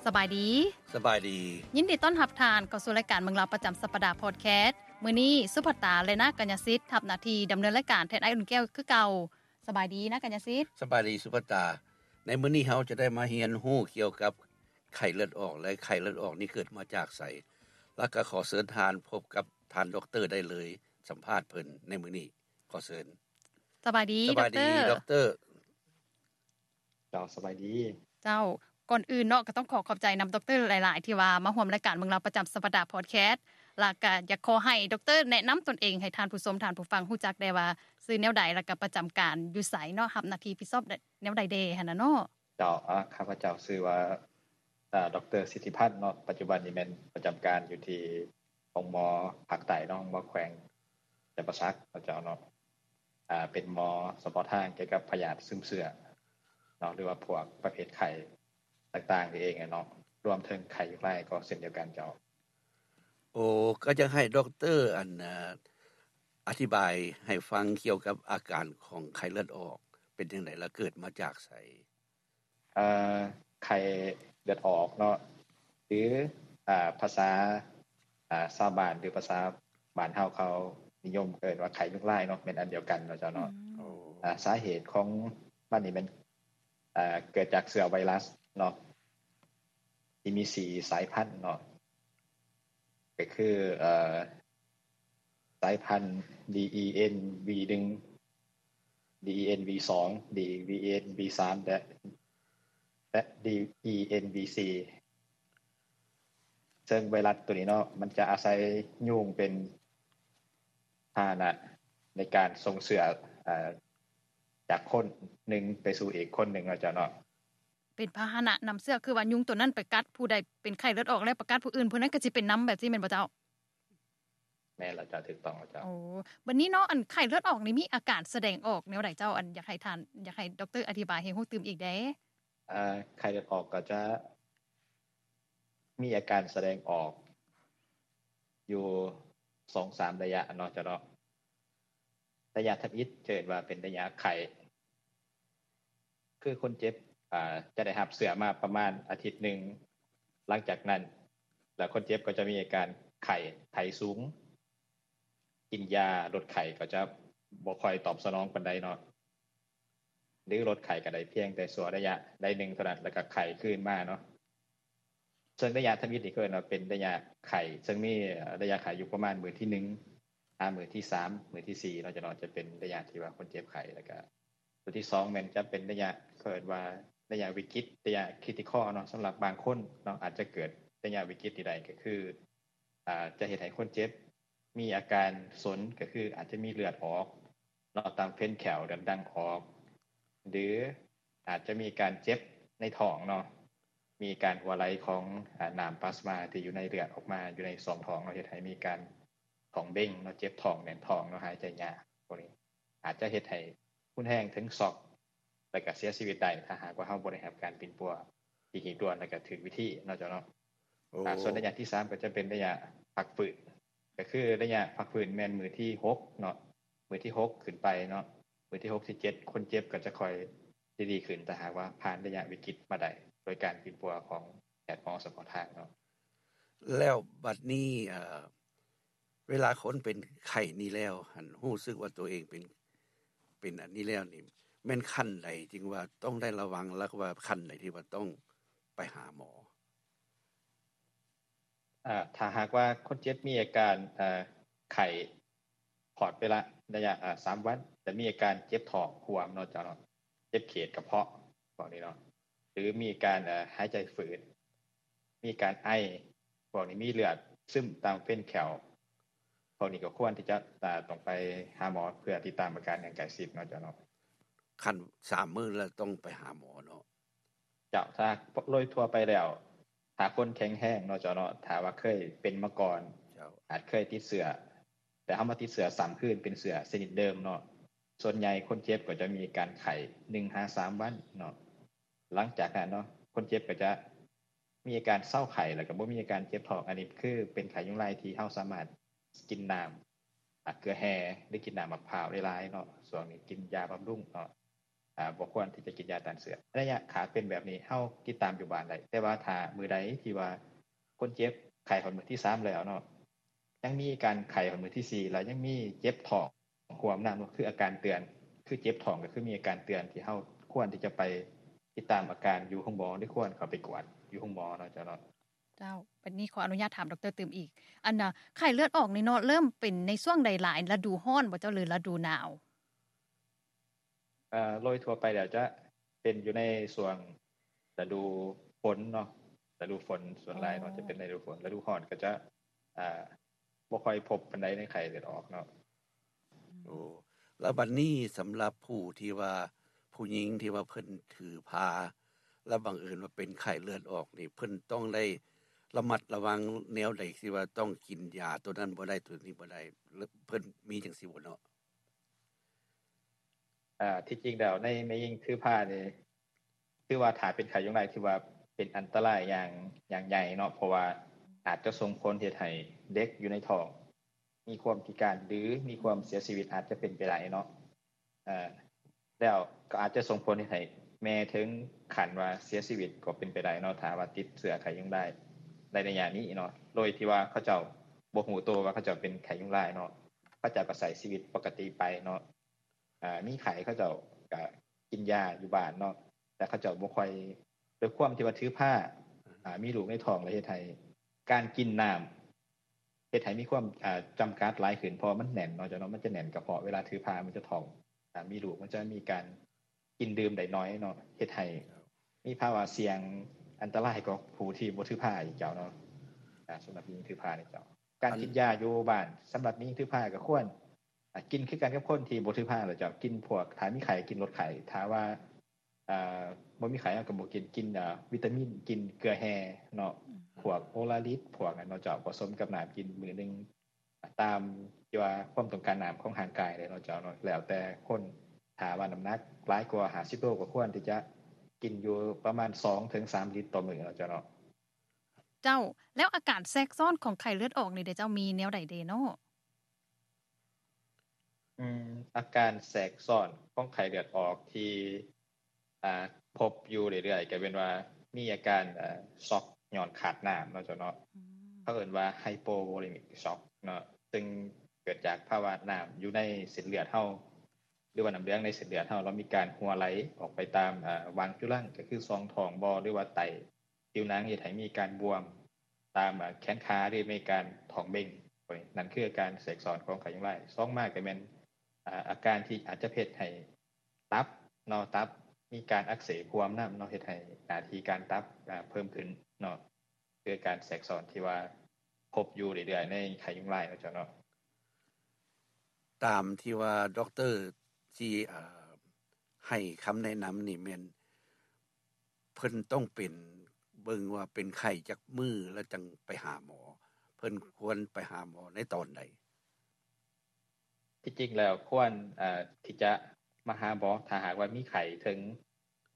ສະບາຍດີ. ສະບາຍດີ. ຍິນດີຕ້ອນຮັບທ່ານເຂົ້າສູ່ລາຍການເມືອງລາວປະຈຳສັບປະດາພອດແຄສ. ມື້ນີ້ສຸພັດຕາ ແລະ ນາກະຍະສິດ ຮັບໜ້າທີ່ດຳເນີນລາຍການແທນອ້າຍອຸ່ນແກ້ວຄືເກົ່າ. ສະບາຍດີນາກະຍະສິດ. ສະບາຍດີສຸພັດຕາ. ໃນມື້ນີ້ເຮົາຈະໄດ້ມາຮຽນຮູ້ກ່ຽວກັບໄຂ້ເລືອດອອກ ແລະ ໄຂ້ເລືອດອອກນີ້ເກີດມາຈາກໃສ. ແລ້ວກໍຂໍເຊີນທ່ານພົບກັບທ່ານດັອກເຕີໄດ້ເລີຍ, ສຳພາດເພິ່ນໃນມື້ນີ້. ຂໍເຊີນ. ສະບາຍດີ ສະບາຍດີ ດັອກເຕີ. ເຈົ້າ ສະບາຍດີ. ເຈົ້າ ກ່ອນອື່ນເນາະ ກໍຕ້ອງຂໍຂອບໃຈນຳດັອກເຕີຫຼາຍໆ ທີ່ວ່າມາຮ່ວມລາຍການເມືອງລາວປະຈຳສັບປະດາພອດແຄສ ແລ້ວກໍຢາກຂໍໃຫ້ດັອກເຕີແນະນຳຕົນເອງໃຫ້ທ່ານຜູ້ຊົມທ່ານຜູ້ຟັງຮູ້ຈັກແດ່ວ່າຊື່ແນວໃດ ແລ້ວກໍປະຈຳການຢູ່ໃສເນາະ ຮັບໜ້າທີ່ຜິດຊອບແນວໃດແດ່ຫັ້ນນະເນາະ. ເຈົ້າ ອາ ຂ້າພະເຈົ້າຊື່ວ່າ ອາ ດັອກເຕີ ສິດທິພັນເນາະ, ປັດຈຸບັນນີ້ແມ່ນປະຈຳການຢູ່ທີ່ໂຮງໝໍພາກໃຕ້ເນາະ, ໂຮງໝໍແຂວງຈຳປາສັກເນາະເຈົ້າເນາະ. ອາ ເປັນໝໍສະເພາະທາງກ່ຽວກັບພະຍາດຊຶມເຊື້ອເນາະ ຫຼືວ່າພວກປະເພດໄຂ້ຕ່າງໆນີ້ເອງເນາະ, ລວມເຖິງໄຂ້ຍຸງລາຍກໍເຊັ່ນດຽວກັນເຈົ້າ. ໂອ້ ກໍຢາກໃຫ້ດັອກເຕີ ອັນ ອາ ອະທິບາຍໃຫ້ຟັງກ່ຽວກັບອາການຂອງໄຂ້ເລືອດອອກເປັນຈັ່ງໃດ ແລະ ເກີດມາຈາກໃສ? ເອີ ໄຂ້ເລືອດອອກເນາະ ຫຼື ອາ ພາສາ ອາ ຊາວບ້ານ ຫຼື ພາສາບ້ານເຮົາເຂົານິຍົມເອີ້ນວ່າໄຂ້ຍຸງລາຍເນາະ ແມ່ນອັນດຽວກັນເນາະເຈົ້າເນາະ. ອາ ສາເຫດຂອງມັນນີ້ແມ່ນ ອາ ເກີດຈາກເຊື້ອໄວຣັສເນາະ ທີ່ມີສີ່ສາຍພັນເນາະ ກໍຄື ເອີ ສາຍພັນ ດີອີເອັນວີໜຶ່ງ ດີອີເອັນວີສອງ ດີອີເອັນວີສາມ ແລະ ແລະ ດີອີເອັນວີສີ່ ເຊິ່ງໄວຣັສໂຕນີ້ເນາະ ມັນຈະອາໄສຍຸງເປັນພາຫະນະໃນການສົ່ງເຊື້ອ ເອີ ຈາກຄົນໜຶ່ງໄປສູ່ອີກຄົນໜຶ່ງເນາະເຈົ້າເນາະ. ເປັນພາຫະນະນຳເຊື້ອ ຄືວ່າຍຸງໂຕນັ້ນໄປກັດຜູ້ໃດເປັນໄຂ້ເລືອດອອກ ແລ້ວໄປກັດຜູ້ອື່ນ ຜູ້ນັ້ນກໍຊິເປັນນຳ ແບບຊີ້ແມ່ນບໍ່ເຈົ້າ? ແມ່ນແລ້ວເຈົ້າ ຖືກຕ້ອງແລ້ວເຈົ້າ. ໂອ້ ບັດນີ້ເນາະ ອັນໄຂ້ເລືອດອອກນີ້ມີອາການສະແດງອອກແນວໃດເຈົ້າ? ອັນຢາກໃຫ້ທ່ານ ຢາກໃຫ້ດັອກເຕີອະທິບາຍໃຫ້ຮູ້ຕື່ມອີກແດ່. ເອີ ໄຂ້ເລືອດອອກກໍຈະມີອາການສະແດງອອກຢູ່ສອງສາມໄລຍະເນາະເຈົ້າເນາະ. ໄລຍະທຳອິດຈະເອີ້ນວ່າເປັນໄລຍະໄຂ້ ຄືຄົນເຈັບ ອາ ຈະໄດ້ຮັບເຊື້ອມາປະມານອາທິດໜຶ່ງ ຫຼັງຈາກນັ້ນ ແລ້ວຄົນເຈັບກໍຈະມີອາການໄຂ້ ໄຂ້ສູງ, ກິນຢາລົດໄຂ້ກໍຈະບໍ່ຄ່ອຍຕອບສະໜອງປານໃດເນາະ ຫຼື ລົດໄຂ້ກໍໄດ້ພຽງແຕ່ຊົ່ວໄລຍະໃດໜຶ່ງເທົ່ານັ້ນ ແລ້ວກໍໄຂ້ຄືນມາເນາະ. ເຊິ່ງໄລຍະທຳອິດນີ້ເອີ້ນວ່າເປັນໄລຍະໄຂ້ ເຊິ່ງມີໄລຍະໄຂ້ຢູ່ປະມານມື້ທີໜຶ່ງ ຫາມື້ທີສາມ ມື້ທີສີ່ເນາະເຈົ້າເນາະ ຈະເປັນໄລຍະທີ່ວ່າຄົນເຈັບໄຂ້ ແລ້ວກະຕົວທີສອງແມ່ນຈະເປັນໄລຍະ ເອີ້ນວ່າໄລຍະວິກິດ ໄລຍະຄຣິຕິຄໍເນາະ ສຳລັບບາງຄົນເນາະ ອາດຈະເກີດໄລຍະວິກິດນີ້ໄດ້ ກໍຄື ອາ ຈະເຮັດໃຫ້ຄົນເຈັບມີອາການສົນ ກໍຄືອາດຈະມີເລືອດອອກ ເນາະ ຕາມເຟນແຂ້ວ ເລືອດດັ່ງອອກ ຫຼື ອາດຈະມີການເຈັບໃນທ້ອງເນາະ ມີການຮົ່ວໄຫຼຂອງ ອາ ນ້ຳປາສມາທີ່ຢູ່ໃນເລືອດອອກມາຢູ່ໃນຊ່ອງທ້ອງເນາະ ເຮັດໃຫ້ມີການທ້ອງເບັງເນາະ ເຈັບທ້ອງ ແໜ້ນທ້ອງເນາະ ຫາຍໃຈຍາກ. ພວກນີ້ອາດຈະເຮັດໃຫ້ຮຸນແຮງເຖິງຊັອກ ແລ້ວກະເສຍຊີວິດໄດ້ ຖ້າຫາກວ່າເຮົາບໍ່ໄດ້ຮັບການປິ່ນປົວທີ່ຮີບດ່ວນ ແລ້ວກະຖືກວິທີເນາະເຈົ້າເນາະ. ໂອ້ ອາ ສ່ວນໄລຍະທີສາມກໍຈະເປັນໄລຍະພັກຟື້ນ ກໍຄືໄລຍະພັກຟື້ນແມ່ນມື້ທີຫົກເນາະ ມື້ທີຫົກຂຶ້ນໄປເນາະ ມື້ທີຫົກ ທີເຈັດ ຄົນເຈັບກໍຈະຄ່ອຍດີໆຂຶ້ນ ຖ້າຫາກວ່າຜ່ານໄລຍະວິກິດມາໄດ້ ໂດຍການປິ່ນປົວຂອງແພດໝໍສະເພາະທາງເນາະ. ແລ້ວບັດນີ້ ເອີ ເວລາຄົນເປັນໄຂ້ນີ້ແລ້ວຫັ້ນ ຮູ້ສຶກວ່າຕົວເອງເປັນ ເປັນອັນນີ້ແລ້ວນີ້ ແມ່ນຂັ້ນໃດຈຶ່ງວ່າຕ້ອງໄດ້ລະວັງ ແລ້ວກໍວ່າຂັ້ນໃດທີ່ວ່າຕ້ອງໄປຫາໝໍ? ອາ ຖ້າຫາກວ່າຄົນເຈັບມີອາການ ເອີ ໄຂ້ ຂອດໄປລະໄລຍະ ອາ ສາມວັນ ແລະ ມີອາການເຈັບທ້ອງຮ່ວມເນາະເຈົ້າເນາະ ເຈັບເຂດກະເພາະ ພວກນີ້ເນາະ ຫຼື ມີການ ເອີ ຫາຍໃຈຝືດ ມີການໄອ ພວກນີ້ ມີເລືອດຊຶມຕາມເຟນແຂ້ວ ພວກນີ້ກໍຄວນທີ່ຈະ ອາ ຕ້ອງໄປຫາໝໍເພື່ອຕິດຕາມອາການຢ່າງໃກ້ຊິດເນາະເຈົ້າເນາະ. ຂັ້ນສາມມື້ແລ້ວຕ້ອງໄປຫາໝໍເນາະ. ເຈົ້າ ຖ້າໂດຍທົ່ວໄປແລ້ວ ຖ້າຄົນແຂງແຮງເນາະເຈົ້າເນາະ ຖ້າວ່າເຄີຍເປັນມາກ່ອນ ເຈົ້າ ອາດເຄີຍຕິດເຊື້ອ ແຕ່ເຮົາມາຕິດເຊື້ອຊ້ຳຄືນ ເປັນເຊື້ອຊະນິດເດີມເນາະ ສ່ວນໃຫຍ່ຄົນເຈັບກໍຈະມີການໄຂ້ໜຶ່ງຫາສາມວັນເນາະ. ຫຼັງຈາກນັ້ນເນາະ ຄົນເຈັບກໍຈະມີອາການເຊົາໄຂ້ ແລ້ວກໍບໍ່ມີອາການເຈັບທ້ອງ. ອັນນີ້ຄືເປັນໄຂ້ຍຸງລາຍທີ່ເຮົາສາມາດກິນນ້ຳ ອາ ເກືອແຮ່ ຫຼື ກິນນ້ຳໝາກພ້າວຫຼາຍໆເນາະ ຊ່ວງນີ້ກິນຢາບຳລຸງເນາະ. ອາ ບໍ່ຄວນທີ່ຈະກິນຢາຕ້ານເຊື້ອ. ໄລຍະຂາເປັນແບບນີ້ ເຮົາຕິດຕາມຢູ່ບ້ານໄດ້, ແຕ່ວ່າຖ້າມື້ໃດທີ່ວ່າຄົນເຈັບໄຂ້ຮອດມື້ທີສາມແລ້ວເນາະ, ຍັງມີອາການໄຂ້ຮອດມື້ທີສີ່ ແລ້ວຍັງມີເຈັບທ້ອງຮ່ວມນຳ, ຄືອາການເຕືອນ, ຄືເຈັບທ້ອງ ກໍຄືມີອາການເຕືອນ ທີ່ເຮົາຄວນທີ່ຈະໄປຕິດຕາມອາການຢູ່ໂຮງໝໍ ຫຼື ຄວນເຂົ້າໄປກວດຢູ່ໂຮງໝໍເນາະ ເຈົ້າເນາະ. ເຈົ້າ, ບັດນີ້ຂໍອະນຸຍາດຖາມດອກເຕີຕື່ມອີກ. ອັນນ່າ ໄຂ້ເລືອດອອກນີ້ເນາະ ເລີ່ມເປັນໃນຊ່ວງໃດຫຼາຍ, ລະດູຮ້ອນບໍ່ເຈົ້າ ຫຼື ລະດູໜາວ? ເອ່ອ ໂດຍທົ່ວໄປແລ້ວຈະເປັນຢູ່ໃນຊ່ວງລະດູຝົນເນາະ, ລະດູຝົນສ່ວນຫຼາຍເນາະ ອໍ ຈະເປັນລະດູຝົນ. ລະດູຮ້ອນກໍຈະ ອ່າ ບໍ່ຄ່ອຍພົບປານໃດໃນໄຂ້ເລືອດອອກເນາະ. ໂອ້ ແລ້ວບັດນີ້ສຳລັບຜູ້ທີ່ວ່າ ຜູ້ຍິງທີ່ວ່າເພິ່ນຖືພາ ແລ້ວບັງເອີນວ່າເປັນໄຂ້ເລືອດອອກນີ້ ເພິ່ນຕ້ອງໄດ້ລະມັດລະວັງແນວໃດ ທີ່ວ່າຕ້ອງກິນຢາໂຕນັ້ນບໍ່ໄດ້ ໂຕນີ້ບໍ່ໄດ້ ເພິ່ນມີຈັ່ງຊີ້ບໍ່ເນາະ? ອ່າ ທີ່ຈິງແລ້ວໃນແມ່ຍິງຖືພານີ້ ຖືວ່າຖ້າເປັນໄຂ້ຍຸງລາຍ ຖືວ່າເປັນອັນຕະລາຍຢ່າງ ຢ່າງໃຫຍ່ເນາະ, ເພາະວ່າອາດຈະສົ່ງຜົນເຮັດໃຫ້ເດັກຢູ່ໃນທ້ອງມີຄວາມພິການ ຫຼື ມີຄວາມເສຍຊີວິດ ອາດຈະເປັນໄປໄດ້ເນາະ. ເອີ ແລ້ວກໍອາດຈະສົ່ງຜົນເຮັດໃຫ້ແມ່ເຖິງຂັ້ນວ່າເສຍຊີວິດກໍເປັນໄປໄດ້ເນາະ ຖ້າວ່າຕິດເຊື້ອໄຂ້ຍຸງລາຍໃນໄລຍະນີ້ເນາະ, ໂດຍທີ່ວ່າເຂົາເຈົ້າບໍ່ຮູ້ໂຕວ່າເຂົາເຈົ້າເປັນໄຂ້ຍຸງລາຍເນາະ, ເຂົາເຈົ້າກໍໃຊ້ຊີວິດປົກກະຕິໄປເນາະ. ອ່າ ມີໄຂ້ເຂົາເຈົ້າກໍກິນຢາຢູ່ບ້ານເນາະ, ແຕ່ເຂົາເຈົ້າບໍ່ຄ່ອຍ ດ້ວຍຄວາມທີ່ວ່າຖືພາ ອ່າ ມີລູກໃນທ້ອງ ແລ້ວເຮັດໃຫ້ການກິນນ້ຳ ເຮັດໃຫ້ມີຄວາມ ອ່າ ຈຳກັດຫຼາຍຂຶ້ນ ເພາະວ່າມັນແໜ້ນເນາະ ເຈົ້າເນາະ, ມັນຈະແໜ້ນກະເພາະ ເວລາຖືພາມັນຈະທ້ອງ ອ່າ ມີລູກ ມັນຈະມີການກິນດື່ມໄດ້ໜ້ອຍເນາະ, ເຮັດໃຫ້ມີພາວະສ່ຽງອັນຕະລາຍກວ່າຜູ້ທີ່ບໍ່ຖືພາອີກ ເຈົ້າເນາະ. ອ່າ ສຳລັບຍິງຖືພານີ້ ເຈົ້າ ການກິນຢາຢູ່ບ້ານ ສຳລັບຍິງຖືພາກໍຄວນ ອ່າ ກິນຄືກັນກັບຄົນທີ່ບໍ່ຖືພາແຫຼະເຈົ້າ, ກິນພວກ ຖ້າມີໄຂ້ກິນລົດໄຂ້, ຖ້າວ່າ ອ່າ ບໍ່ມີໄຂ້ເຮົາກໍບໍ່ກິນ, ກິນ ອ່າ ວິຕາມິນ, ກິນເກືອແຮ່ເນາະ, ອືມ ພວກໂອລາລິດ ພວກນັ້ນເນາະເຈົ້າ, ປະສົມກັບນ້ຳກິນມື້ໜຶ່ງ ຕາມທີ່ວ່າຄວາມຕ້ອງການນ້ຳຂອງຮ່າງກາຍເດ້ເນາະເຈົ້າເນາະ, ແລ້ວແຕ່ຄົນ. ຖ້າວ່ານ້ຳໜັກຫຼາຍກວ່າຫ້າສິບໂລ ກໍຄວນທີ່ຈະກິນຢູ່ປະມານສອງເຖິງສາມລິດຕໍ່ມື້ເນາະເຈົ້າເນາະ. ເຈົ້າ, ແລ້ວອາການແຊກຊ້ອນຂອງໄຂ້ເລືອດອອກນີ້ເດເຈົ້າ ມີແນວໃດເດເນາະ? ອືມ ອາການແຊກຊ້ອນຂອງໄຂ້ເລືອດອອກທີ່ ອ່າ ພົບຢູ່ເລື້ອຍໆ ກໍແມ່ນວ່າມີອາການ ເອີ ຊັອກຍ້ອນຂາດນ້ຳເນາະເຈົ້າເນາະ, ອືມ ເຂົາເອີ້ນວ່າ hypovolemic shock ເນາະ, ຊຶ່ງເກີດຈາກພາວະນ້ຳຢູ່ໃນເສັ້ນເລືອດເຮົາ ຫຼືວ່ານ້ຳເຫຼືອງໃນເສັ້ນເລືອດເຮົາ ລະມີການຮົ່ວໄຫຼອອກໄປຕາມ ເອີ ຫວ່າງຈຸລັງ ກໍຄືຊ່ອງທ້ອງບໍ ຫຼືວ່າໃຕ້ຜິວໜັງ ເຮັດໃຫ້ມີການບວມຕາມ ເອີ ແຂນຂາ ຫຼືມີການທ້ອງເບັ່ງ. ນັ້ນຄືອາການແຊກຊ້ອນຂອງໄຂ້ຍຸງລາຍ. ສອງມາກໍແມ່ນ ອາ ອາການທີ່ອາດຈະເຮັດໃຫ້ຕັບເນາະ, ຕັບມີການອັກເສບຮ່ວມນຳເນາະ, ເຮັດໃຫ້ໜ້າທີ່ການຕັບ ອາ ເພີ່ມຂຶ້ນເນາະ. ຄືການແຊກຊ້ອນທີ່ວ່າພົບຢູ່ເລື້ອຍໆໃນໄຂ້ຍຸງລາຍເນາະເຈົ້າເນາະ. ຕາມທີ່ວ່າດັອກເຕີທີ່ ເອີ ໃຫ້ຄຳແນະນຳນີ້ແມ່ນ ເພິ່ນຕ້ອງເປັນ ເບິ່ງວ່າເປັນໄຂ້ຈັກມື້ ແລ້ວຈັ່ງໄປຫາໝໍ, ເພິ່ນຄວນໄປຫາໝໍໃນຕອນໃດ? ທີ່ຈິງແລ້ວຄວນ ເອີ ທີ່ຈະມາຫາໝໍ ຖ້າຫາກວ່າມີໄຂ້ເຖິງ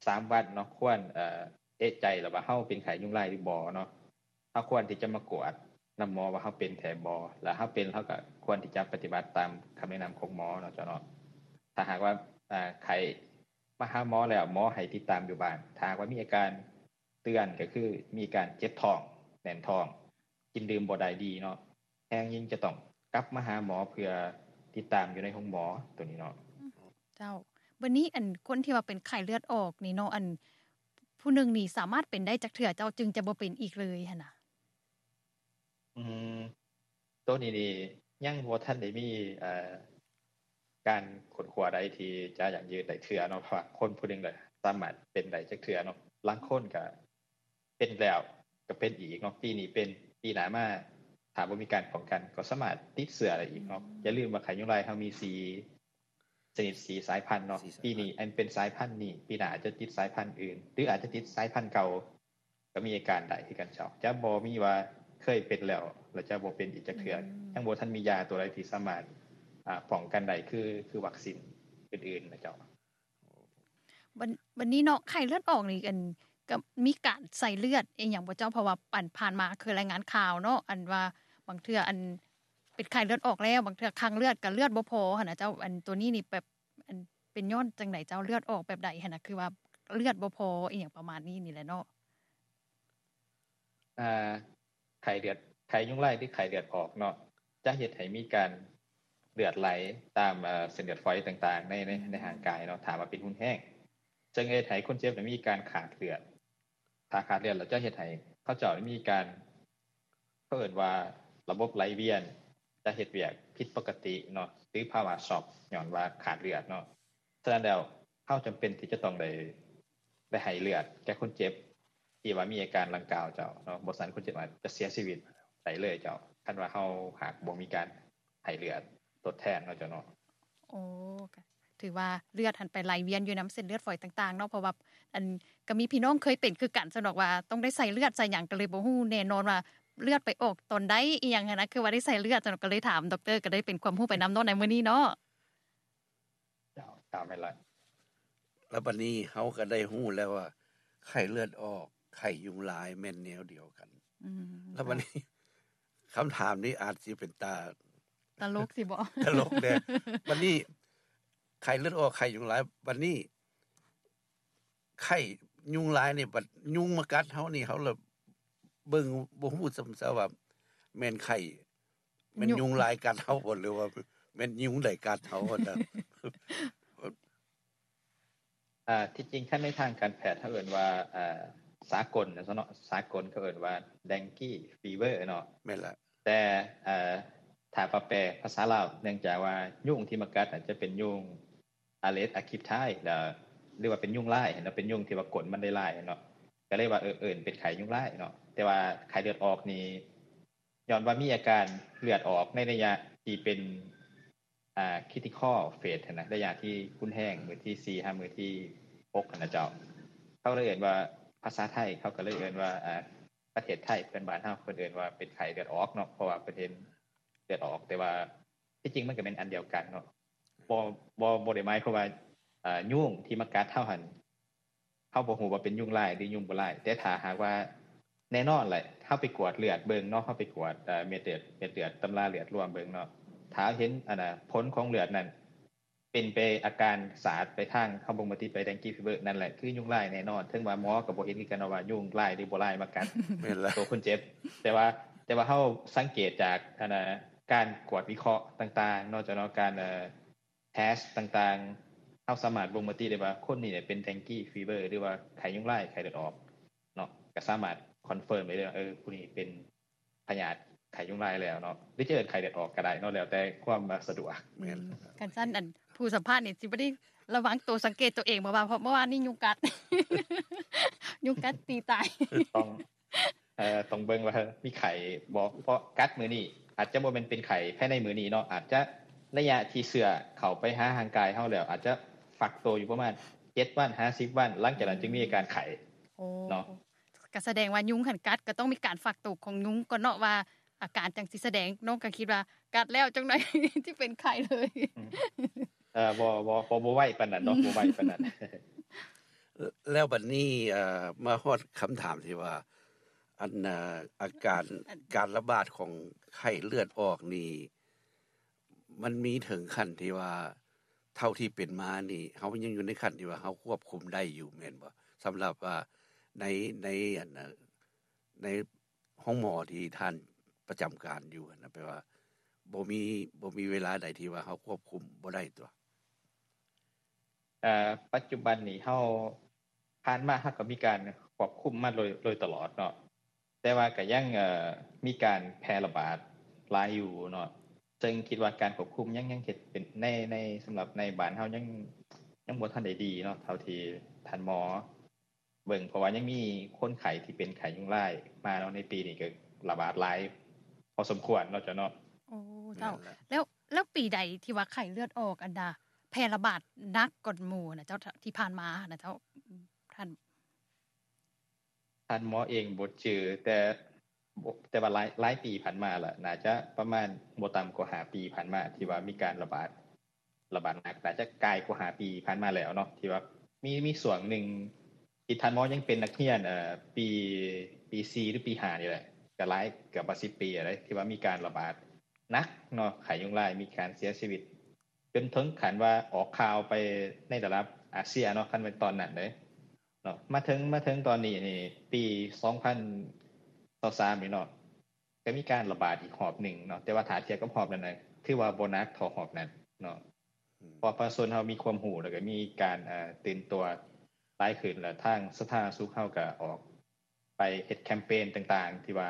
ສາມວັນເນາະ, ຄວນ ເອີ ເອະໃຈແລ້ວວ່າເຮົາເປັນໄຂ້ຍຸງລາຍຫຼືບໍ່ເນາະ, ເຮົາຄວນທີ່ຈະມາກວດນຳໝໍວ່າເຮົາເປັນແທ້ບໍ່, ແລ້ວເຮົາເປັນ ເຮົາກໍຄວນທີ່ຈະປະຕິບັດຕາມຄຳແນະນຳຂອງໝໍເນາະເຈົ້າເນາະ. ຖ້າຫາກວ່າ ເອີ ໄຂ້ມາຫາໝໍແລ້ວ ໝໍໃຫ້ຕິດຕາມຢູ່ບ້ານ, ຖ້າຫາກວ່າມີອາການເຕືອນ ກໍຄືມີການເຈັບທ້ອງ, ແໜ້ນທ້ອງ, ກິນດື່ມບໍ່ໄດ້ດີເນາະ, ແຮງຍິງຈະຕ້ອງກັບມາຫາໝໍເພື່ອຕິດຕາມຢູ່ໃນໂຮງໝໍໂຕນີ້ເນາະ. ເຈົ້າ, ບັດນີ້ອັນຄົນທີ່ວ່າເປັນໄຂ້ເລືອດອອກນີ້ເນາະ, ອັນຜູ້ໜຶ່ງນີ້ສາມາດເປັນໄດ້ຈັກເທື່ອເຈົ້າ ຈຶ່ງຈະບໍ່ເປັນອີກເລີຍຫັ້ນນະ? ອືມ ໂຕນີ້ນີ້ຍັງບໍ່ທັນໄດ້ມີ ເອີ ການຄົ້ນຄວ້າໃດທີ່ຈະຢັ້ງຢືນໄດ້ເທື່ອເນາະ, ເພາະວ່າຄົນຜູ້ໜຶ່ງລະສາມາດເປັນໄດ້ຈັກເທື່ອເນາະ. ລາງຄົນກະ ເປັນແລ້ວກໍເປັນອີກເນາະ, ປີນີ້ເປັນ ປີໜ້າມາ ຖ້າບໍ່ມີການປ້ອງກັນກໍສາມາດຕິດເຊື້ອໄດ້ອີກເນາະ. ຢ່າລືມວ່າໄຂ້ຍຸງລາຍເຮົາມີສີ່ຊະນິດ ສີ່ສາຍພັນເນາະ, ປີນີ້ອັນເປັນສາຍພັນນີ້ ປີໜ້າອາດຈະຕິດສາຍພັນອື່ນ ຫຼືອາດຈະຕິດສາຍພັນເກົ່າ ກໍມີອາການໄດ້ຄືກັນເຈົ້າ. ຈະບໍ່ມີວ່າເຄີຍເປັນແລ້ວ ແລ້ວຈະບໍ່ເປັນອີກຈັກເທື່ອ, ຍັງບໍ່ທັນມີຢາຕົວໃດທີ່ສາມາດ ອາ ປ້ອງກັນໄດ້ ຄື ຄືວັກຊິນອື່ນໆນະເຈົ້າ. ບັດ ບັດນີ້ເນາະ ໄຂ້ເລືອດອອກນີ້ ອັນ ກໍມີການໃສ່ເລືອດອີ່ຫຍັງບໍ່ເຈົ້າ? ເພາະວ່າ ອັນ ຜ່ານມາເຄີຍລາຍງານຂ່າວເນາະ ອັນວ່າບາງເທື່ອ ອັນ ເປັນໄຂ້ເລືອດອອກແລ້ວ ບາງເທື່ອຄັງເລືອດກໍເລືອດບໍ່ພໍຫັ້ນນະເຈົ້າ. ອັນ ໂຕນີ້ນີ້ແບບ ອັນ ເປັນຍ້ອນຈັ່ງໃດເຈົ້າ? ເລືອດອອກແບບໃດຫັ້ນນະ? ຄືວ່າເລືອດບໍ່ພໍອີ່ຫຍັງປະມານນີ້ນີ້ແຫຼະເນາະ. ອ່າ ໄຂ້ເລືອດ ໄຂ້ຍຸງລາຍ ຫຼື ໄຂ້ເລືອດອອກເນາະ ຈະເຮັດໃຫ້ມີການເລືອດໄຫຼຕາມ ເອີ ເສັ້ນເລືອດຝອຍຕ່າງໆ ໃນ ໃນ ໃນຮ່າງກາຍເນາະ ຖ້າວ່າເປັນຮຸນແຮງ ເຊິ່ງເຮັດໃຫ້ຄົນເຈັບນີ້ມີການຂາດເລືອດ. ຖ້າຂາດເລືອດແລ້ວຈະເຮັດໃຫ້ເຂົາເຈົ້າມີການ ເຂົາເອີ້ນວ່າລະບົບໄຫຼວຽນຈະເຮັດວຽກຜິດປົກກະຕິເນາະ ຫຼື ພາວະຊັອກ ຍ້ອນວ່າຂາດເລືອດເນາະ. ສະນັ້ນແລ້ວ ເຮົາຈຳເປັນທີ່ຈະຕ້ອງໄດ້ ໄດ້ໃຫ້ເລືອດແກ່ຄົນເຈັບທີ່ວ່າມີອາການດັ່ງກ່າວເຈົ້າເນາະ, ບໍ່ຊັ້ນຄົນເຈັບອາດຈະເສຍຊີວິດໄດ້ເລີຍເຈົ້າ ຄັນວ່າເຮົາຫາກບໍ່ມີການໃຫ້ເລືອດທົດແທນເນາະເຈົ້າເນາະ. ໂອ້ ກະຖືວ່າເລືອດຫັ້ນໄປໄຫຼວຽນຢູ່ນຳເສັ້ນເລືອດຝອຍຕ່າງໆເນາະ, ເພາະວ່າ ອັນ ກະມີພີ່ນ້ອງເຄີຍເປັນຄືກັນຊັ້ນດອກ ວ່າຕ້ອງໄດ້ໃສ່ເລືອດໃສ່ຫຍັງ ກະເລີຍບໍ່ຮູ້ແນ່ນອນວ່າເລືອດໄປອອກຕອນໃດ ອີ່ຫຍັງຫັ້ນນະ ຄືວ່າໄດ້ໃສ່ເລືອດຊັ້ນດອກ ກະເລີຍຖາມດັອກເຕີ ກະໄດ້ເປັນຄວາມຮູ້ໄປນຳເນາະໃນມື້ນີ້ເນາະ. ເຈົ້າ ເຈົ້າ ແມ່ນລະ. ແລ້ວບັດນີ້ເຮົາກໍໄດ້ຮູ້ແລ້ວວ່າ ໄຂ້ເລືອດອອກ ໄຂ້ຍຸງລາຍແມ່ນແນວດຽວກັນ. ອືມ ແລ້ວບັດນີ້ ເຈົ້າ ຄຳຖາມນີ້ອາດຊິເປັນຕາ ຕະຫຼົກຊິບໍ? ຕະຫຼົກແດ່. ບັດນີ້ ໄຂ້ເລືອດອອກ ໄຂ້ຍຸງລາຍ ບັດນີ້ ໄຂ້ຍຸງລາຍນີ້ ບັດຍຸງມາກັດເຮົານີ້ ເຮົາລະເບິ່ງບໍ່ຮູ້ຊ້ຳຊະວ່າແມ່ນໄຂ້ ແມ່ນຍຸງລາຍກັດເຮົາບໍ່ ຫຼືວ່າແມ່ນຍຸງໃດກັດເຮົາຫັ້ນນະ? ອ່າ ທີ່ຈິງຄັນໃນທາງການແພດເຮົາເອີ້ນວ່າ ອ່າ ສາກົນນະເນາະ ສາກົນເຂົາເອີ້ນວ່າ dengue fever ເນາະ. ແມ່ນລະ. ແຕ່ ອ່າ ຖ້າວ່າແປພາສາລາວ ເນື່ອງຈາກວ່າຍຸງທີ່ມາກັດອາດຈະເປັນຍຸງ Aedes aegypti ແລ້ວ ຫຼືວ່າເປັນຍຸງລາຍເນາະ ເປັນຍຸງທີ່ວ່າກົນມັນໄດ້ລາຍເນາະ ກະເລີຍວ່າ ເອີ ເອີ້ນເປັນໄຂ້ຍຸງລາຍເນາະ. ແຕ່ວ່າໄຂ້ເລືອດອອກນີ້ ຍ້ອນວ່າມີອາການເລືອດອອກໃນໄລຍະທີ່ເປັນ ອ່າ critical phase ຫັ້ນນະ ໄລຍະທີ່ຮຸນແຮງ ມື້ທີສີ່ຫາມື້ທີຫົກຫັ້ນນະເຈົ້າ. ເຂົາເລີຍເອີ້ນວ່າ ພາສາໄທເຂົາກະເລີຍເອີ້ນວ່າ ອ່າ ປະເທດໄທເພື່ອນບ້ານເຮົາ ເພິ່ນເອີ້ນວ່າເປັນໄຂ້ເລືອດອອກເນາະ ເພາະວ່າເພິ່ນເຫັນເລືອດອອກ. ແຕ່ວ່າທີ່ຈິງມັນກະແມ່ນອັນດຽວກັນເນາະ. ບໍ່ ບໍ່ ບໍ່ໄດ້ໝາຍຄວາມວ່າ ເອີ ຍຸງທີ່ມາກັດເຮົາຫັ້ນ ເຮົາບໍ່ຮູ້ວ່າເປັນຍຸງລາຍ ຫຼື ຍຸງບໍ່ລາຍ. ແຕ່ຖ້າຫາກວ່າ ແນ່ນອນແຫຼະ ເຮົາໄປກວດເລືອດເບິ່ງເນາະ ເຮົາໄປກວດ ເອີ ເມັດເລືອດ ເມັດເລືອດ ຕຳລາເລືອດລວມເບິ່ງເນາະ ຖ້າເຫັນ ອັນນະ ຜົນຂອງເລືອດນັ້ນ ເປັນໄປອາການສາດໄປທາງ ເຮົາບົ່ງມາຕິໄປ dengue fever ນັ້ນແຫຼະ ຄືຍຸງລາຍແນ່ນອນ. ເຖິງວ່າໝໍກໍບໍ່ເຫັນຄືກັນວ່າຍຸງລາຍ ຫຼື ບໍ່ລາຍມາກັດ ແມ່ນລະ ໂຕຄົນເຈັບ. ແຕ່ວ່າ ແຕ່ວ່າເຮົາສັງເກດຈາກ ອັນນະ ການກວດວິເຄາະຕ່າງໆເນາະ ເຈົ້າເນາະ ການ ເອີ test ຕ່າງໆ ເຮົາສາມາດບົ່ງມະຕິໄດ້ວ່າ ຄົນນີ້ເປັນ dengue fever ຫຼືວ່າໄຂ້ຍຸງລາຍ ໄຂ້ເລືອດອອກເນາະ ກະສາມາດ confirm ໄດ້ເລີຍວ່າ ເອີ ຜູ້ນີ້ເປັນພະຍາດໄຂ້ຍຸງລາຍແລ້ວເນາະ ຫຼືຈະເອີ້ນໄຂ້ເລືອດອອກກະໄດ້ເນາະ ແລ້ວແຕ່ຄວາມສະດວກ. ແມ່ນ. ຄັນຊັ້ນ ອັນ ຜູ້ສຳພາດນີ້ຊິບໍ່ໄດ້ລະວັງໂຕ ສັງເກດໂຕເອງບໍ່ວ່າ ເພາະເມື່ອວານນີ້ຍຸງກັດ ຍຸງກັດຕີຕາຍ. ຕ້ອງ ເອີ ຕ້ອງເບິ່ງວ່າມີໄຂ້ບໍ່ ເພາະກັດມື້ນີ້ ອາດຈະບໍ່ແມ່ນເປັນໄຂ້ພາຍໃນມື້ນີ້ເນາະ ອາດຈະໄລຍະທີ່ເຊື້ອເຂົ້າໄປຫາຮ່າງກາຍເຮົາແລ້ວ ອາດຈະຟັກໂຕຢູ່ປະມານເຈັດວັນຫາສິບວັນ ຫຼັງຈາກນັ້ນຈຶ່ງມີອາການໄຂ້. ໂອ້ ເນາະ ກະສະແດງວ່າຍຸງຫັ້ນກັດ ກະຕ້ອງມີການຟັກໂຕຂອງຍຸງກ່ອນເນາະ ວ່າອາການຈັ່ງຊິສະແດງ. ນ້ອງກະຄິດວ່າກັດແລ້ວຈັ່ງໃດຊິເປັນໄຂ້ເລີຍ. ອືມ ເອີ ບໍ່ ບໍ່ ບໍ່ ບໍ່ໄວປານນັ້ນເນາະ ບໍ່ໄວປານນັ້ນ. ແລ້ວບັດນີ້ ເອີ ມາຮອດຄຳຖາມທີ່ວ່າ ອັນ ເອີ ອາການ ການລະບາດຂອງໄຂ້ເລືອດອອກນີ້ ມັນມີເຖິງຂັ້ນທີ່ວ່າ ເທົ່າທີ່ເປັນມານີ້ ເຮົາຍັງຢູ່ໃນຂັ້ນທີ່ວ່າເຮົາຄວບຄຸມໄດ້ຢູ່ແມ່ນບໍ່? ສຳລັບວ່າໃນ ໃນ ອັນ ໃນໂຮງໝໍທີ່ທ່ານປະຈຳການຢູ່ຫັ້ນນະ ແປວ່າບໍ່ມີ ບໍ່ມີເວລາໃດທີ່ວ່າເຮົາຄວບຄຸມບໍ່ໄດ້ຕົວະ? ເອີ ປັດຈຸບັນນີ້ເຮົາ ຜ່ານມາເຮົາກະມີການຄວບຄຸມມາໂດຍ ໂດຍຕະຫຼອດເນາະ ແຕ່ວ່າກະຍັງ ເອີ ມີການແຜ່ລະບາດຫຼາຍຢູ່ເນາະ ເຊິ່ງຄິດວ່າການຄວບຄຸມຍັງ ຍັງເຮັດເປັນ ໃນ ໃນ ສຳລັບໃນບ້ານເຮົາຍັງ ຍັງບໍ່ທັນໄດ້ດີເນາະ ເທົ່າທີ່ທ່ານໝໍເບິ່ງ ເພາະວ່າຍັງມີຄົນໄຂ້ທີ່ເປັນໄຂ້ຍຸງລາຍມາເນາະ ໃນປີນີ້ກະລະບາດຫຼາຍພໍສົມຄວນເນາະເຈົ້າເນາະ. ໂອ້ ເຈົ້າ. ແລ້ວ ແລ້ວປີໃດທີ່ວ່າໄຂ້ເລືອດອອກອັນດາ ແຜ່ລະບາດໜັກກວ່າໝູ່ນະເຈົ້າ ທີ່ຜ່ານມານະເຈົ້າ? ທ່ານ ທ່ານໝໍເອງບໍ່ຈື່ ແຕ່ ແຕ່ວ່າຫຼາຍ ຫຼາຍປີຜ່ານມາລະ ໜ້າຈະປະມານບໍ່ຕ່ຳກວ່າຫ້າປີຜ່ານມາ ທີ່ວ່າມີການລະບາດ ລະບາດໜັກ ໜ້າຈະກາຍກວ່າຫ້າປີຜ່ານມາແລ້ວເນາະ ທີ່ວ່າມີ ມີຊ່ວງໜຶ່ງທີ່ທ່ານໝໍຍັງເປັນນັກຮຽນ ເອີ ປີ ປີສີ່ ຫຼື ປີຫ້ານີ້ແຫຼະ ກະຫຼາຍ ເກືອບວ່າສິບປີແລ້ວເດ້ ທີ່ວ່າມີການລະບາດໜັກເນາະ ໄຂ້ຍຸງລາຍ ມີການເສຍຊີວິດ ຈົນເຖິງຂັ້ນວ່າອອກຂ່າວໄປໃນລະດັບອາເຊຍເນາະ ຄັນແມ່ນຕອນນັ້ນເດ້ເນາະ. ມາເຖິງ ມາເຖິງຕອນນີ້ນີ້ ປີສອງພັນຊາວສາມນີ້ເນາະ ກໍມີການລະບາດອີກຮອບໜຶ່ງເນາະ, ແຕ່ວ່າຖ້າທຽບກັບຮອບນັ້ນນະ ຖືວ່າບໍ່ໜັກເທົ່າຮອບນັ້ນເນາະ. ອືມ ເພາະປະຊາຊົນເຮົາມີຄວາມຮູ້ ແລ້ວກໍມີການ ເອີ ຕື່ນຕົວຫຼາຍຂຶ້ນ ແລ້ວທາງສາທາລະນະສຸກເຮົາກໍອອກໄປເຮັດແຄມເປນຕ່າງໆ ທີ່ວ່າ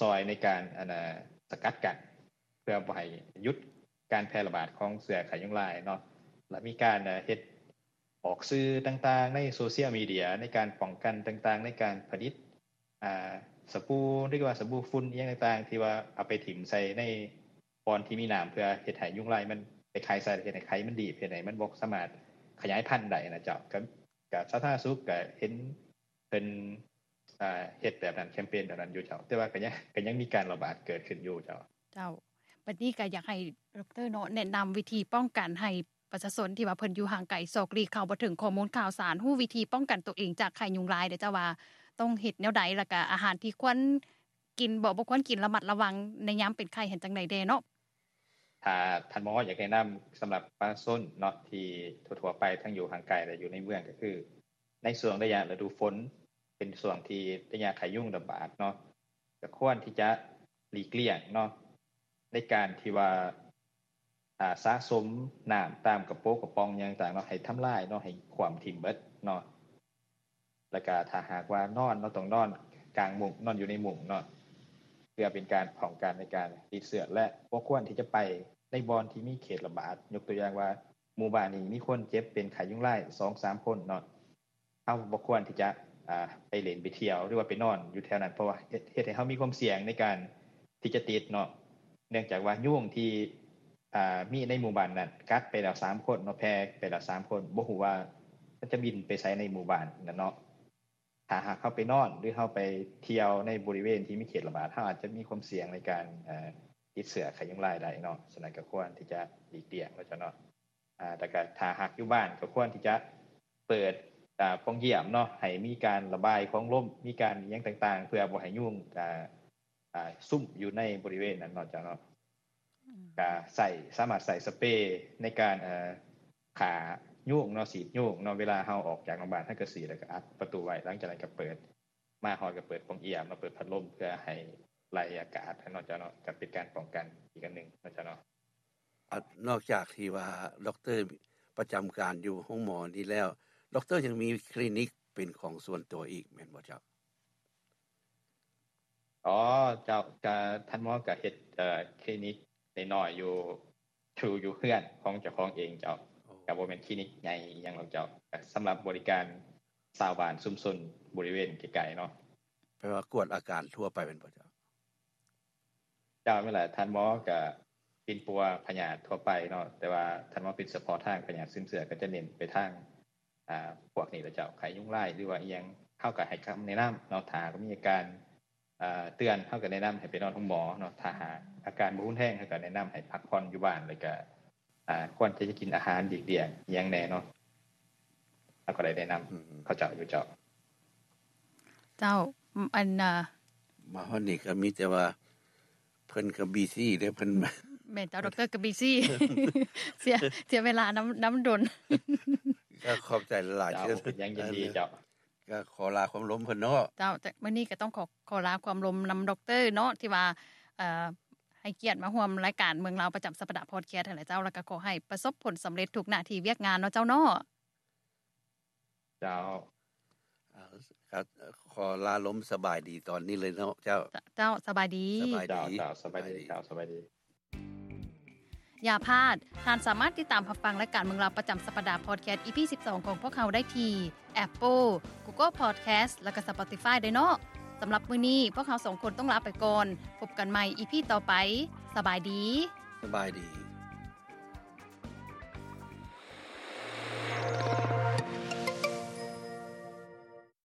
ຊ່ອຍໃນການ ອັນນ່າ ສະກັດກັ້ນ ເພື່ອບໍ່ໃຫ້ຢຸດການແຜ່ລະບາດຂອງເຊື້ອໄຂ້ຍຸງລາຍເນາະ. ແລ້ວມີການ ເອີ ເຮັດອອກສື່ຕ່າງໆ ໃນໂຊຊຽວມີເດຍ ໃນການປ້ອງກັນຕ່າງໆ ໃນການຜະລິດ ອ່າ ສະບູ ຫຼືວ່າສະບູຝຸ່ນອີ່ຫຍັງຕ່າງໆ ທີ່ວ່າເອົາໄປຖິ້ມໃສ່ໃນບ່ອນທີ່ມີນ້ຳ ເພື່ອເຮັດໃຫ້ຍຸງລາຍມັນໄປໄຂ່ໃສ່ ເຮັດໃຫ້ໄຂ່ມັນດີບ ເຮັດໃຫ້ມັນບໍ່ສາມາດຂະຫຍາຍພັນໄດ້ນະເຈົ້າ. ກໍ ກໍສາທາລະນະສຸກກໍເຫັນເພິ່ນ ອ່າ ເຮັດແບບນັ້ນ ແຄມເປນແບບນັ້ນຢູ່ເຈົ້າ, ແຕ່ວ່າກໍຍັງ ກໍຍັງມີການລະບາດເກີດຂຶ້ນຢູ່ເຈົ້າ. ເຈົ້າ ບັດນີ້ກໍຢາກໃຫ້ດັອກເຕີເນາະ ແນະນຳວິທີປ້ອງກັນໃຫ້ ປະຊາຊົນທີ່ວ່າເພິ່ນຢູ່ຫ່າງໄກ ຊອກຫຼີກ ເຂົ້າບໍ່ເຖິງຂໍ້ມູນຂ່າວສານ ຮູ້ວິທີປ້ອງກັນຕົວເອງຈາກໄຂ້ຍຸງລາຍເດ້ເຈົ້າ ວ່າຕ້ອງເຮັດແນວໃດ ແລ້ວກະອາຫານທີ່ຄວນກິນບໍ່ ບໍ່ຄວນກິນ ລະມັດລະວັງໃນຍາມເປັນໄຂ້ຫັ້ນຈັ່ງໃດແດ່ເນາະ? ຖ້າທ່ານໝໍຢາກແນະນຳສຳລັບປະຊາຊົນເນາະ ທີ່ທົ່ວໆໄປ ທັງຢູ່ຫ່າງໄກ ແລະ ຢູ່ໃນເມືອງ ກໍຄືໃນຊ່ວງໄລຍະລະດູຝົນ ເປັນຊ່ວງທີ່ໄລຍະໄຂ້ຍຸງລະບາດເນາະ ກໍຄວນທີ່ຈະຫຼີກລ້ຽງເນາະ ໃນການທີ່ວ່າ ອ່າ ສະສົມນ້ຳຕາມກະໂປະກະປ໋ອງຫຍັງຕ່າງເນາະ ໃຫ້ທຳລາຍເນາະ ໃຫ້ຂວ້ຳຖິ້ມເບິດເນາະ. ແລ້ວກະຖ້າຫາກວ່ານອນເນາະ ຕ້ອງນອນກາງມຸ້ງ ນອນຢູ່ໃນມຸ້ງເນາະ ເພື່ອເປັນການປ້ອງກັນໃນການຕິດເຊື້ອ ແລະ ບໍ່ຄວນທີ່ຈະໄປໃນບ່ອນທີ່ມີເຂດລະບາດ. ຍົກຕົວຢ່າງວ່າ ໝູ່ບ້ານນີ້ມີຄົນເຈັບເປັນໄຂ້ຍຸງລາຍສອງສາມຄົນເນາະ ເຮົາບໍ່ຄວນທີ່ຈະ ອ່າ ໄປຫຼິ້ນໄປທ່ຽວ ຫຼືວ່າໄປນອນຢູ່ແຖວນັ້ນ ເພາະວ່າເຮັດ ເຮັດໃຫ້ເຮົາມີຄວາມສ່ຽງໃນການທີ່ຈະຕິດເນາະ ເນື່ອງຈາກວ່າຍຸງທີ່ ອ່າ ມີໃນໝູ່ບ້ານນັ້ນກັດໄປແລ້ວສາມຄົນເນາະ ແຜ່ໄປແລ້ວສາມຄົນ ບໍ່ຮູ້ວ່າມັນຈະບິນໄປໃສໃນໝູ່ບ້ານນັ້ນເນາະ. ຖ້າຫາກເຮົາໄປນອນ ຫຼື ເຮົາໄປທ່ຽວໃນບໍລິເວນທີ່ມີເຂດລະບາດ ເຮົາອາດຈະມີຄວາມສ່ຽງໃນການ ເອີ ຕິດເຊື້ອໄຂ້ຍຸງລາຍໄດ້ເນາະ. ສະນັ້ນກໍຄວນທີ່ຈະຫຼີກລ້ຽງເນາະເຈົ້າເນາະ. ອ່າ ແລ້ວກໍຖ້າຫາກຢູ່ບ້ານກໍຄວນທີ່ຈະເປີດ ອ່າ ປ່ອງຢ້ຽມເນາະ ໃຫ້ມີການລະບາຍຂອງລົມ ມີການອີ່ຫຍັງຕ່າງໆ ເພື່ອບໍ່ໃຫ້ຍຸງ ອ່າ ຊຸມຢູ່ໃນບໍລິເວນນັ້ນເນາະເຈົ້າເນາະ. ອືມ ກໍໃຊ້ ສາມາດໃຊ້ສະເປໃນການ ເອີ ຂ້າຍຸງເນາະ ສີດຍຸງເນາະ. ເວລາເຮົາອອກຈາກໂຮງບານ ເຮົາກໍສີດ ແລ້ວກໍອັດປະຕູໄວ້ ຫຼັງຈາກນັ້ນກໍເປີດ ມາຮອດກໍເປີດປ່ອງຢ້ຽມ ມາເປີດພັດລົມ ເພື່ອໃຫ້ໄລ່ອາກາດເນາະເຈົ້າເນາະ ກໍເປັນການປ້ອງກັນອີກອັນໜຶ່ງເນາະເຈົ້າເນາະ. ອາ ນອກຈາກທີ່ວ່າດັອກເຕີປະຈຳການຢູ່ໂຮງໝໍນີ້ແລ້ວ ດັອກເຕີຍັງມີຄລີນິກເປັນຂອງສ່ວນຕົວອີກແມ່ນບໍ່ເຈົ້າ? ອໍ ເຈົ້າ ກະທ່ານໝໍກະເຮັດ ເອີ ຄລີນິກນ້ອຍໆຢູ່ ຢູ່ ຢູ່ເຮືອນຂອງເຈົ້າຂອງເອງເຈົ້າ. ໂອ້ ກະບໍ່ແມ່ນຄລີນິກໃຫຍ່ອີ່ຫຍັງດອກເຈົ້າ ກະສຳລັບບໍລິການຊາວບ້ານຊຸມຊົນບໍລິເວນໃກ້ໆເນາະ. ແປວ່າກວດອາການທົ່ວໄປແມ່ນບໍ່ເຈົ້າ? ເຈົ້າ ແມ່ນລະ ທ່ານໝໍກະປິ່ນປົວພະຍາດທົ່ວໄປເນາະ ແຕ່ວ່າທ່ານໝໍປິ່ນສະເພາະທາງພະຍາດຊຶມເຊື້ອ ກະຈະເນັ້ນໄປທາງ ອ່າ ພວກນີ້ລະເຈົ້າ ໄຂ້ຍຸງລາຍ ຫຼືວ່າອີ່ຫຍັງ ເຮົາກະໃຫ້ຄຳແນະນຳເນາະ. ຖ້າຫາກມີອາການ ອ່າ ເຕືອນ ເຮົາກໍແນະນຳໃຫ້ໄປນອນໂຮງໝໍເນາະ. ຖ້າຫາກອາການບໍ່ຮຸນແຮງ ເຮົາກໍແນະນຳໃຫ້ພັກຜ່ອນຢູ່ບ້ານ ແລ້ວກໍ ອ່າ ຄວນທີ່ຈະກິນອາຫານຫຼີກລ້ຽງອີ່ຫຍັງແດ່ເນາະ ເຮົາກໍໄດ້ແນະນຳ ອືມ ເຂົາເຈົ້າຢູ່ເຈົ້າ. ເຈົ້າ ອັນນ່າ ມາຮອດນີ້ກໍມີແຕ່ວ່າເພິ່ນກໍບີຊີເດ້ ເພິ່ນ ແມ່ນເຈົ້າ ດັອກເຕີກໍບີຊີ ເສຍ ເສຍເວລານຳ ນຳດົນ. ກໍຂອບໃຈຫຼາຍໆ ເຈົ້າ ເປັນຫຍັງ ຍິນດີເຈົ້າ. ກໍຂໍລາຄວາມລົມເພິ່ນເນາະ. ເຈົ້າ ແຕ່ມື້ນີ້ກໍຕ້ອງຂໍ ຂໍລາຄວາມລົມນຳດັອກເຕີເນາະ ທີ່ວ່າ ເອີ ໃຫ້ກຽດມາຮ່ວມລາຍການເມືອງລາວປະຈຳສັບປະດາພອດແຄສຫັ້ນແຫຼະເຈົ້າ. ແລ້ວກໍຂໍໃຫ້ປະສົບຜົນສຳເລັດທຸກໜ້າທີ່ວຽກງານເນາະເຈົ້າເນາະ. ເຈົ້າ ເອີ ກໍຂໍລາລົມສະບາຍດີຕອນນີ້ເລີຍເນາະເຈົ້າ. ເຈົ້າ ສະບາຍດີ ສະບາຍດີ ເຈົ້າ ເຈົ້າ ສະບາຍດີ ສະບາຍດີ ເຈົ້າ ສະບາຍດີ. ຢ່າພາດ, ທ່ານສາມາດຕິດຕາມຮັບຟັງລາຍການເມືອງລາວປະຈຳສັບປະດາພອດແຄສ ອີ ພີ ສິບສອງ ຂອງພວກເຮົາໄດ້ທີ່ Apple, Google Podcast ແລະ Spotify ເດີເນາະ. ສຳລັບມື້ນີ້ ພວກເຮົາສອງຄົນຕ້ອງລາໄປກ່ອນ. ພົບກັນໃໝ່ ອີ ພີ ຕໍ່ໄປ. ສະບາຍດີ. ສະບາຍດີ.